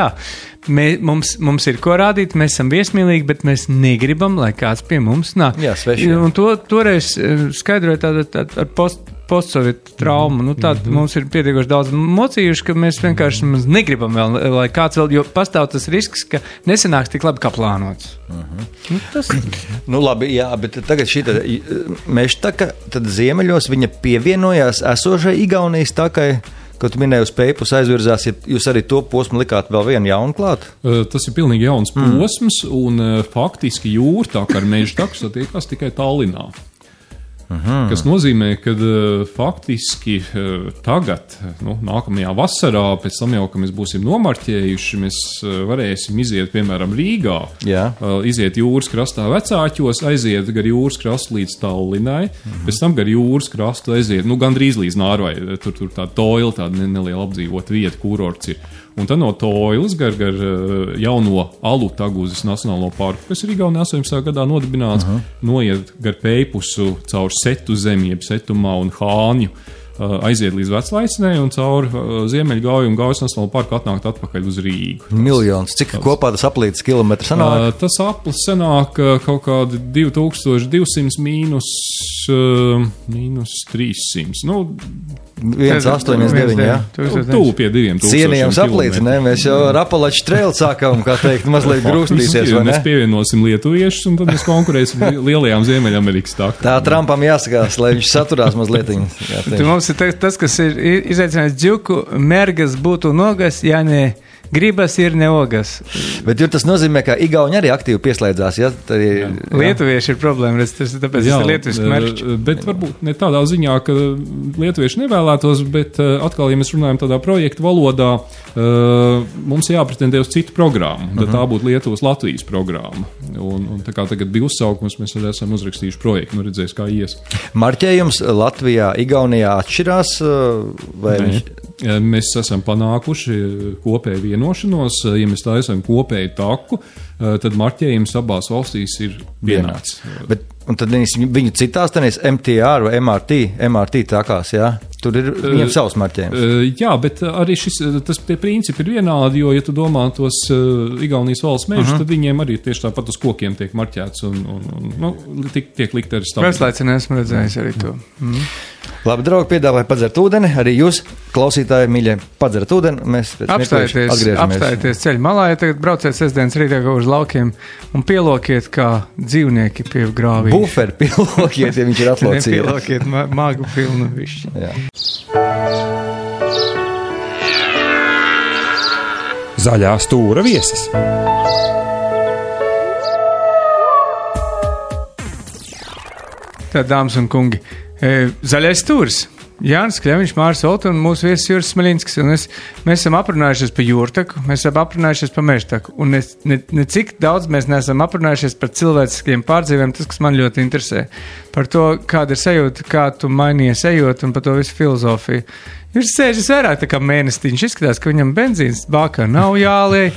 mums ir ko rādīt, mēs esam viesmīlīgi, bet mēs negribam, lai kāds pie mums nāk. Jā, sveši. Un toreiz skaidroja tāda ar postsovietu traumu. Mums ir pietiekoši daudz mocījuši, ka mēs vienkārši negribam vēl, lai kāds vēl, jo pastāv tas risks, ka nesanāks tik labi, kā plānots. Labi, jā, bet tagad šī mežtaka, tad ziemeļos viņa pievienojās esošai Igaunijas takai, ko tu minēji uz Peipus aizvirzās, ja jūs arī to posmu likāt vēl vienu jaunu klāt? Tas ir pilnīgi jauns posms, un faktiski jūrtaka ar mežtaku satiekās tikai Tallinā. Kas nozīmē, ka faktiski tagad, nākamajā vasarā, pēc tam jau, ka mēs būsim nomarķējuši, mēs varēsim iziet, piemēram, Rīgā, iziet jūras krastā Vecāķos, aiziet gar jūras krastu līdz Tallinai, pēc tam gar jūras krastu aiziet, gandrīz līdz Nārvai, tur tā Toila, tāda neliela apdzīvota vieta, kurorts ir. Un tad no Toilas gar jauno Alutaguzes Nacionālo parku, kas ir Igaunijā 18. gadā nodibināts, noiet gar Peipusu caur Setu zemi, jeb Setumā un Hāņu, aiziet līdz Veclaicinai un caur Ziemeļgauju un Gaujas Nacionālo parku atnākt atpakaļ uz Rīgu. Miljons. Cik kopā tas aplītas kilometru sanāk? Tas aplis sanāk kaut kādi 2200 mīnus 300. Nu, 1,89, jā. Tūp pie 2000. Cienījams aplīts, ne? Mēs jau ar Apalaču trailu sākām, kā teikt, mazliet grūstīties, vai ne? Mēs pievienosim lietuviešus un tad mēs konkurēsim lielajām Ziemeļamerikas takām. Tā Trumpam jāsakās, lai viņš saturās mazliet. Tu mums ir tas, kas ir izaicinājis džuku, mergas būtu nogas, ja ne gribas ir neogas. Bet tas nozīmē, ka Igauni arī aktīvi pieslēdzās, ja? Lietuvieši ir problēma, tāpēc tas ir lietuviski merčs. Bet varbūt ne tādā ziņā, ka lietuvieši nevēlētos, bet atkal, ja mēs runājam tādā projektu valodā, mums jāpretendē uz citu programmu, tad tā būtu Lietuvas-Latvijas programma. Un tā kā tagad bija uzsaukums, mēs arī esam uzrakstījuši projektu, nu redzēs, kā ies. Marķējums Latvijā, Igaunijā atšķirās? Vai Mēs esam panākuši kopēju vienošanos, ja mēs taisam kopēju taku, tad marķējums abās valstīs ir vienāds. Un tad viņu citās tenīs MTR vai MRT takās, jā? Tur ir viņiem savs marķējums. Jā, bet arī tie principi ir vienādi, jo, ja tu domā tos Igaunijas valsts mežus, tad viņiem arī tieši tāpat uz kokiem tiek marķēts un tiek likt arī stāvēt. Vēslaicinē esmu redzējis arī to. Labi, draugi, piedāvāju padzert ūdeni. Arī jūs, klausītāji, mīļie, padzert ūdeni. Mēs apstājieties ceļu malā, ja tagad brauciet sestdienas rītā uz laukiem un pielokiet kā dzīvnieki pie grāvī. Buferi pielokiet, ja viņš ir atlocījies. Nepielokiet magu pilnu višķi. Jā. Zaļā stūra viesis. Tā, dāmas un kungi, zaļais stūris. Jānis Kļaviņš, Māris Olta un mūsu viesis Juris Smaļinskis. Mēs esam aprunājušies par jūrtaku, mēs esam aprunājušies par mežtaku. Un ne cik daudz mēs neesam aprunājušies par cilvēciskiem pārdzīvēm, tas, kas man ļoti interesē. Par to, kāda ir sajūta, kā tu mainījies ejot un par to visu filozofiju. Viņš sēžas vairāk tā kā mēnestiņš, izskatās, ka viņam benzīns bākā nav jāliej.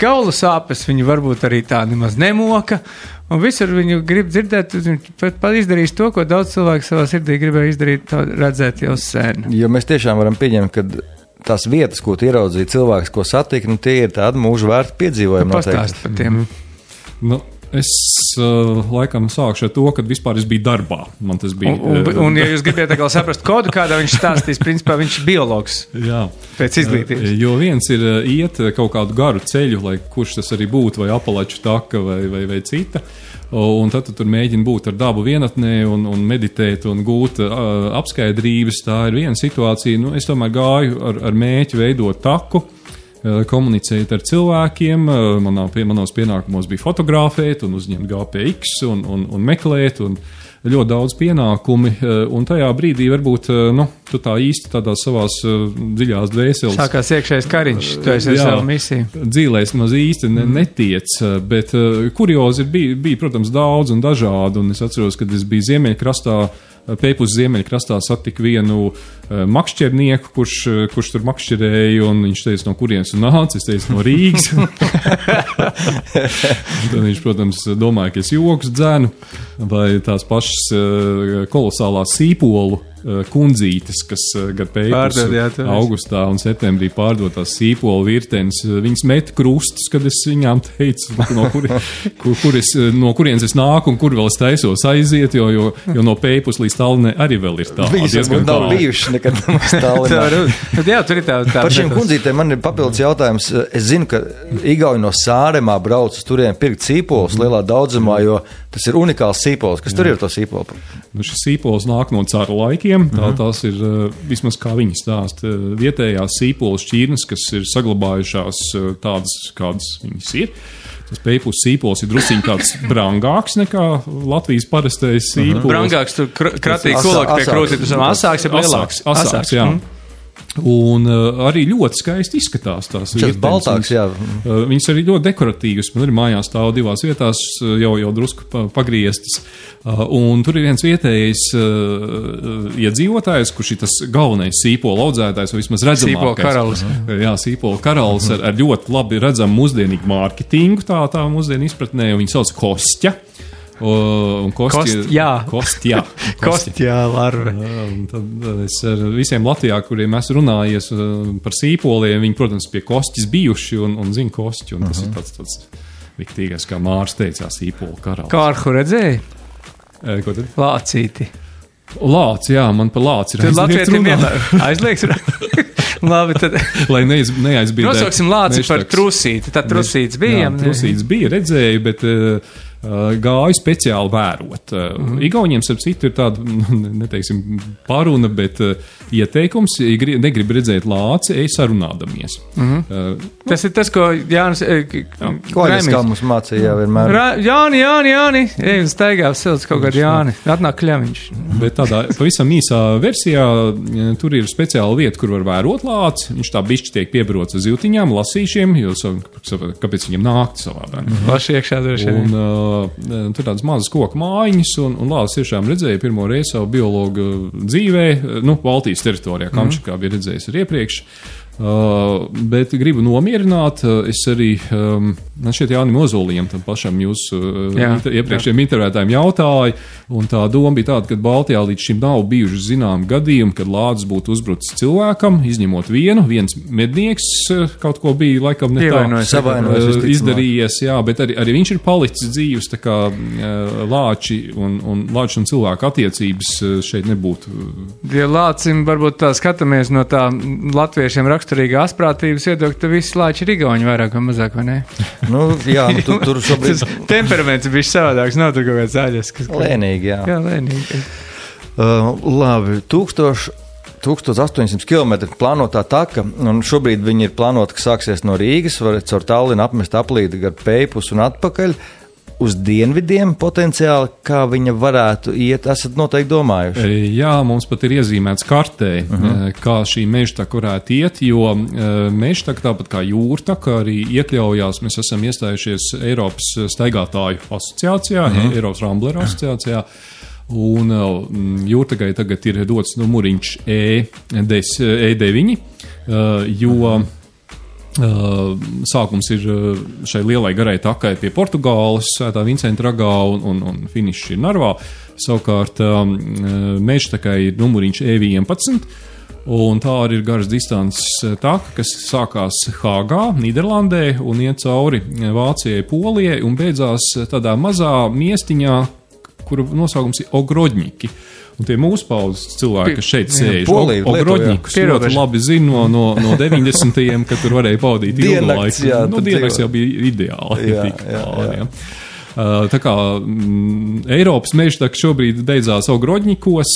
Kaulu sāpes viņu varbūt arī tā nemaz nemoka. Un visur viņu grib dzirdēt, viņš pat izdarīs to, ko daudz cilvēku savā sirdī gribēja izdarīt, redzēt jau sen. Jo mēs tiešām varam pieņemt, ka tās vietas, ko tu ieraudzīji, cilvēks, ko satika, tie ir tādi mūžu vērti piedzīvojumi. Pastāst par tiem. Es laikam sākšu ar to, kad vispār es biju darbā. Man tas bija. Un ja jūs gribiet atkal saprast kodu, kādā viņš stāstīs, principā viņš ir biologs. Jā. Pēc izglītības. Jo viens ir iet kaut kādu garu ceļu, lai kurš tas arī būtu, vai Apalaču taka, vai cita. Un tad tu tur mēģini būt ar dabu vienatnē un meditēt un gūt apskaidrības. Tā ir viena situācija. Es tomēr gāju ar mēķi veidot taku. Komunicēt ar cilvēkiem, manos pienākumos bija fotografēt un uzņemt GPX un meklēt un ļoti daudz pienākumi, un tajā brīdī varbūt, tu tā īsti tādās savās dziļās dvēseles. Sākās iekšējais kariņš, tu esi ar savu misiju. Dzīlēs maz īsti netiec, bet kuriozi bija, protams, daudz un dažādi, un es atceros, kad es biju Ziemeļkrastā, Peipus Ziemeļkrastā satiku vienu makšķernieku, kurš tur makšķerēja, un viņš teica, no kurienes tu nāc, es teicu, no Rīgas. Tad viņš, protams, domāja, ka es joks dzēnu, vai tās pašas kolosālās sīpolu kundzītes, kas gar Peipus augustā un septembrī pārdotās sīpolu virtenes, viņas met krustus, kad es viņām teicu, no kurienes es nāku un kur vēl es taisos aiziet, jo no Peipus līdz Tallinai arī vēl ir tā. Viņas nav bijušas nekad nemaz Tallinā. Jā, tur ir tā. Par šiem kundzītēm man ir papildus jautājums. Es zinu, ka Igauņi no Sāremā brauc uz turien pirkt sīpolus lielā daudzumā, jo tas ir unikāls sīpols. Kas tur ir to sīpolu? Šis sīpols nāk no caru laikiem. Tās ir, vismaz kā viņi stāsta, vietējās sīpolas šķirnes, kas ir saglabājušās tādas, kādas viņas ir. Tas Peipus sīpols ir drusciņ tāds brangāks nekā Latvijas parastais sīpols. Brangāks, tur kratīgi kulāk pie krūti, tas asāks ir lielāks. Asāks, jā. Un arī ļoti skaisti izskatās tās Šis baltāks, jā. Viņas arī ļoti dekoratīvas. Man arī mājās stāv divās vietās, jau drusku pagrieztas. Un tur ir viens vietējais iedzīvotājs, kurš ir tas galvenais sīpola audzētājs, vai vismaz redzamākais. Sīpola karalis. Jā, sīpola karalis ar ļoti labi redzamu mūsdienīgu mārketingu, tā mūsdienu izpratnē, un viņi sauc Kostja. Kostjā larve. Tad es ar visiem Latvijā, kuriem esmu runājies par sīpoliem, viņi, protams, pie Kostjas bijuši un zina Kostju, un tas ir tāds viktīgais, kā Mārs teica, sīpola karalis. Kārhu redzēji? Ko tad? Lācīti. Lāc, jā, man par lāci ir aizliegts. Labi, tad. Lai neaizbīdētu. Nosauksim lāci par trusīti. Tad trusīts bija. Jā, trusīts bija, redzēju, bet gāju speciāli vērot. Igauniem, starp citu, ir tāda, neteiksim, paruna, bet ieteikums, ja negrib redzēt lāci, ej sarunādamies. Tas ir tas, ko Jānis... Koļas, kā mums mācīja vienmēr. Jāni, ej un staigā silts kaut kādu Jāni. Atnāk kļaviņš. Bet tādā pavisam īsā versijā tur ir speciāla vieta, kur var vērot lāci. Viņš tā bišķi tiek piebarots uz zīltiņām, lasīšiem, jo kāpēc viņam nākti savādāk. Laši iekšā droši. Tur tādas mazas koku mājiņas, un lācis tiešām redzēja pirmo reizi savu biologu dzīvē, Baltijas teritorijā, Kamčakā bija redzējis arī iepriekš. Bet gribu nomierināt, es arī, man šeit Jānim Ozolijam, tam pašam jūsu iepriekšējiem intervētājiem jautāju, un tā doma bija tāda, ka Baltijā līdz šim nav bijuši zinām gadījumi, kad lācis būtu uzbrucis cilvēkam, izņemot viens mednieks kaut ko bija laikam ne tā izdarījies, jā, bet arī viņš ir palicis dzīves, tā kā lāči un cilvēku attiecības šeit nebūtu. Ja lācim varbūt tā skatāmies no tā latviešiem raksturīga asprātības iedokļa, tad visi lāči ir igauņi vairāk vai mazāk, vai ne? Tur šobrīd... Temperaments ir bišķi savādāks, nav tur kaut kāds zaļas. Lēnīgi, jā. Jā, lēnīgi. Labi, 1800 km plānotā taka, un šobrīd viņi ir plānota, ka sāksies no Rīgas, var caur Tallinu apmest aplīti gar Peipus un atpakaļ. Uz dienvidiem potenciāli, kā viņa varētu iet, esat noteikti domājuši? Jā, mums pat ir iezīmēts kartē, kā šī mežtaka varētu iet, jo mežtaka, tāpat kā jūrtaka, arī iekļaujās, mēs esam iestājušies Eiropas staigātāju asociācijā, Eiropas Rambleru asociācijā, un jūrtakai tagad ir dots numuriņš E9, jo sākums ir šai lielai garai takai pie Portugāles, Svētā Vincenta ragā un finišs ir Narvā. Savukārt mežtakai ir numuriņš E11, un tā arī ir garas distances taka, kas sākās Hāgā, Nīderlandē, un iet cauri Vācijai, Polijai, un beidzās tādā mazā miestiņā, kura nosaukums ir Ogrodņiki. Un tie mūsu paudzes cilvēki, kas šeit sēž, Ogrodņikus ļoti labi zina no 90-iem, kad tur varēja pavadīt ilgu laiku. Diennakts jau bija ideāli. Tā kā Eiropas mežtaka šobrīd beidzās Ogrodņikos,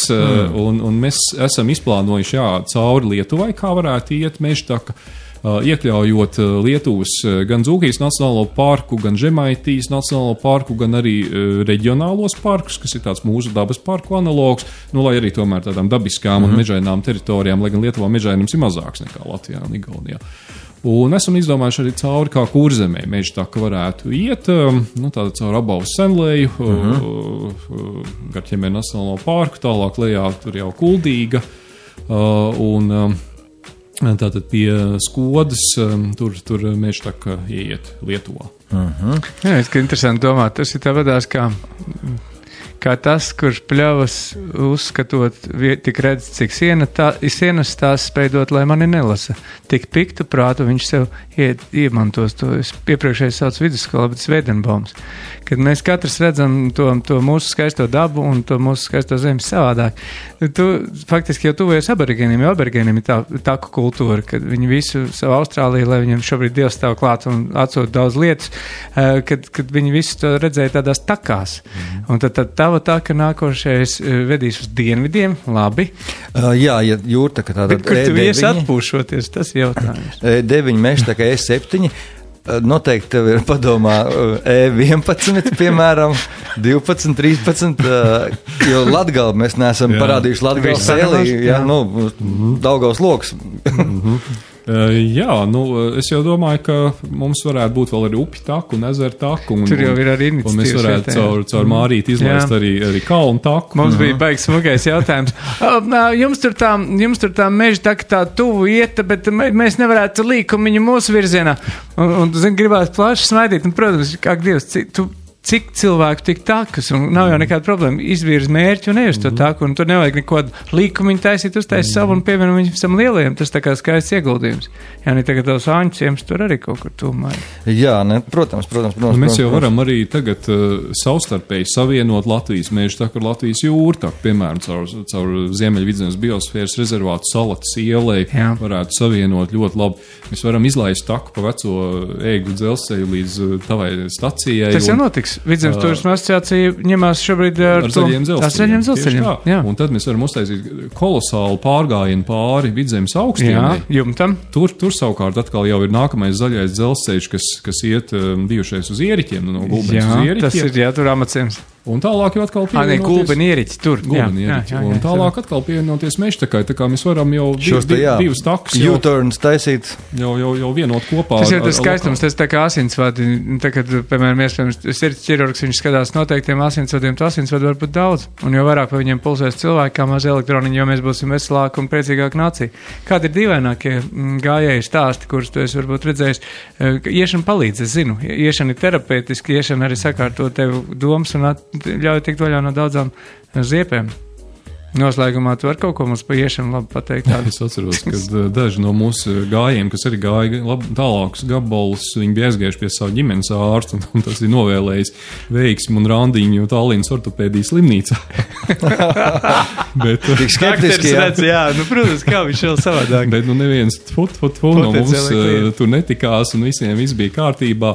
un mēs esam izplānojuši cauri Lietuvai, kā varētu iet mežtaka, iekļaujot Lietuvas gan Dzūkijas nacionālo parku, gan Žemaitijas nacionālo parku, gan arī reģionālos parkus, kas ir tāds mūsu dabas parku analogs, lai arī tomēr tādām dabiskām un mežainām teritorijām, lai gan Lietuvā mežainums ir mazāks nekā Latvijā un Igaunijā. Un esam izdomājuši arī cauri, kā Kurzemē mežtaka varētu iet, tāda caur Abavas senleju, gar Ķemēra nacionālo parku, tālāk lejā tur jau Kuldīga, un tātad pie Skodas tur mežtaka ieiet Lietuvā. Jā, es ka interesanti domāt, tas ir tā vadās kā tas, kurš pļavas uzskatot, tik redz, cik sienas tās spējdot, lai mani nelasa. Tik piktu prātu viņš sev iemantos to. Es iepriekšēji sauc vidusskolā, bet Svēdenbaums. Kad mēs katrs redzam to mūsu skaisto dabu un to mūsu skaisto zemi savādāk. Tu faktiski jau tuvojies aborigēniem, jo aborigēniem ir tā taku kultūra, kad viņi visu savu Austrāliju, lai viņiem šobrīd Dievs stāv klāt un atsūt daudz lietas, kad viņi visu to redzēja tādās takās. Un tad tava taka nākošais vedīs uz dienvidiem, labi. Jā, ja jūrtaka tāda kur tu ies atpūšoties, tas jautājums. E9 mežtaka E7. noteikti tev ir padomā E11, piemēram, 12, 13, jo Latgali mēs neesam parādījuši Latgali sēlī, Daugavas loks. Jā, es jau domāju, ka mums varētu būt vēl arī upi taku un ezeru taku. Tur jau ir arī iniciatīvas. Un mēs varētu caur Mārīti izlaist arī kalnu taku. Mums bija baigs smagais jautājums. Jums tur tā meža taka tā tuvu ieta, bet mēs nevarētu līkumiņu mūsu virzienā. Un gribētu plaši smaidīt. Un, protams, kā Dievs, cik cilvēku tik takas, un nav jau nekāda problēma. Izvirz mērķi un ej uz to taku, un tur nevajag neko līkumiņu taisīt, uztaisīt savu un pievienot viņam visam lielajiem. Tas tā kā skaists ieguldījums. Jā, ne tagad tavs āņķiems tur arī kaut kur tūmā. Jā, protams. Mēs jau varam arī tagad savstarpēji savienot Latvijas mežu taku ar Latvijas jūru taku, piemēram, caur Ziemeļvidzemes biosfēras rezervātu Salatas ielai varētu savienot ļoti labi. Mēs varam izlaist taku pa veco ēgļu dzelzceļu līdz tavai stacijai. Tas jau notiks. Vidzemes turisma asociācija ņemās šobrīd ar zaļiem dzelzceļiem. Jā. Un tad mēs varam uztaisīt kolosālu pārgājienu pāri Vidzemes augstienai. Jā, jumtam. Tur savukārt atkal jau ir nākamais zaļais dzelzceļš, kas iet bijušais uz Ieriķiem, no Gulbenes uz Ieriķiem. Tas ir, tur Amaciems. Un tālāk jau atkal pievienoties... Gulbeni Ieriķi, tur. Un tālāk atkal pievienoties mežtakai, tā kā mēs varam jau divas takas U-turns taisīt. Jau vienot kopā. Tas jau tas skaistums, tas tā kā asinsvadi. Tagad, piemēram, iespējams, sirds ķirurgs, viņš skatās noteiktiem asinsvadiem, to asinsvadu var būt daudz. Un jo vairāk vai viņiem pulsēs cilvēki, kā maz elektroniņi, jo mēs būsim veselāki un priecīgāki nācija. Kādi ir dīvainākie gājēji stāsti, kurus tu esi varbūt redzējis? Iešana palīdz, es zinu. Iešana ir terapeitiski, iešana arī sakārto tev domas un ļauj tikt vaļā no daudzām ziepēm. Noslēgumā tu var kaut ko mums pa iešanu labi pateikt. Es atceros, ka daži no mūsu gājiem, kas arī gāja tālākus gabalus, viņi bija aizgājuši pie savu ģimenes ārstu, un tas ir novēlējis veiksmi un randiņu Tallinas ortopēdijas slimnīcā. Bet, tik skeptiski, jā. Protams, kā viņš vēl savādāk. Bet, neviens no mums tur netikās, un visiem viss bija kārtībā.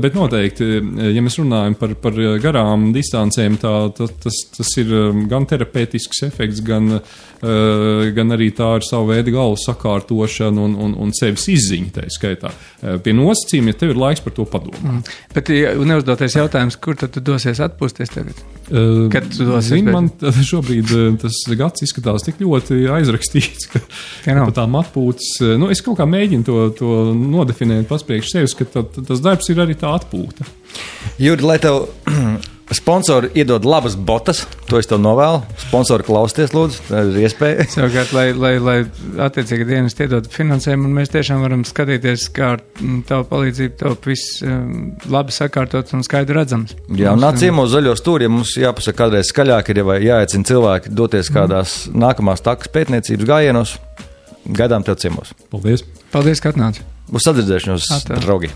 Bet noteikti, ja mēs runājam par garām distancēm, tas ir gan terapeitisks efekts, gan arī tā ir savu veidu galvas sakārtošana un sevis izziņa tā skaitā. Pie nosacījuma, ja tev ir laiks par to padomāt. Bet neuzdotais jautājums, kur tad tu dosies atpūsties tagad? Kad tu dosies? Zini, man šobrīd tas gads izskatās tik ļoti aizrakstīts, ka pa tām atpūtas, es kaut kā mēģinu to nodefinēt pats priekš sevis, ka tas darbs ir arī tā atpūta. Juri, lai tev sponsori iedod labas botas, to es tev novēlu. Sponsori klausties, lūdzu, tā ir iespēja. Savukārt, lai attiecīgi dienas iedod finansējumu, un mēs tiešām varam skatīties, kā ar tavu palīdzību top viss labi sakārtots un skaidri redzams. Jā, un nāc ciemos zaļo stūri, ja mums jāpasaka kādreiz skaļāk ir, vai jāaicina cilvēki doties kādās nākamās takas pētniecības gājienos. Gaidām tev ciemos. Paldies! Paldies, ka atnāci! Uz sadzirdēšanos, draugi!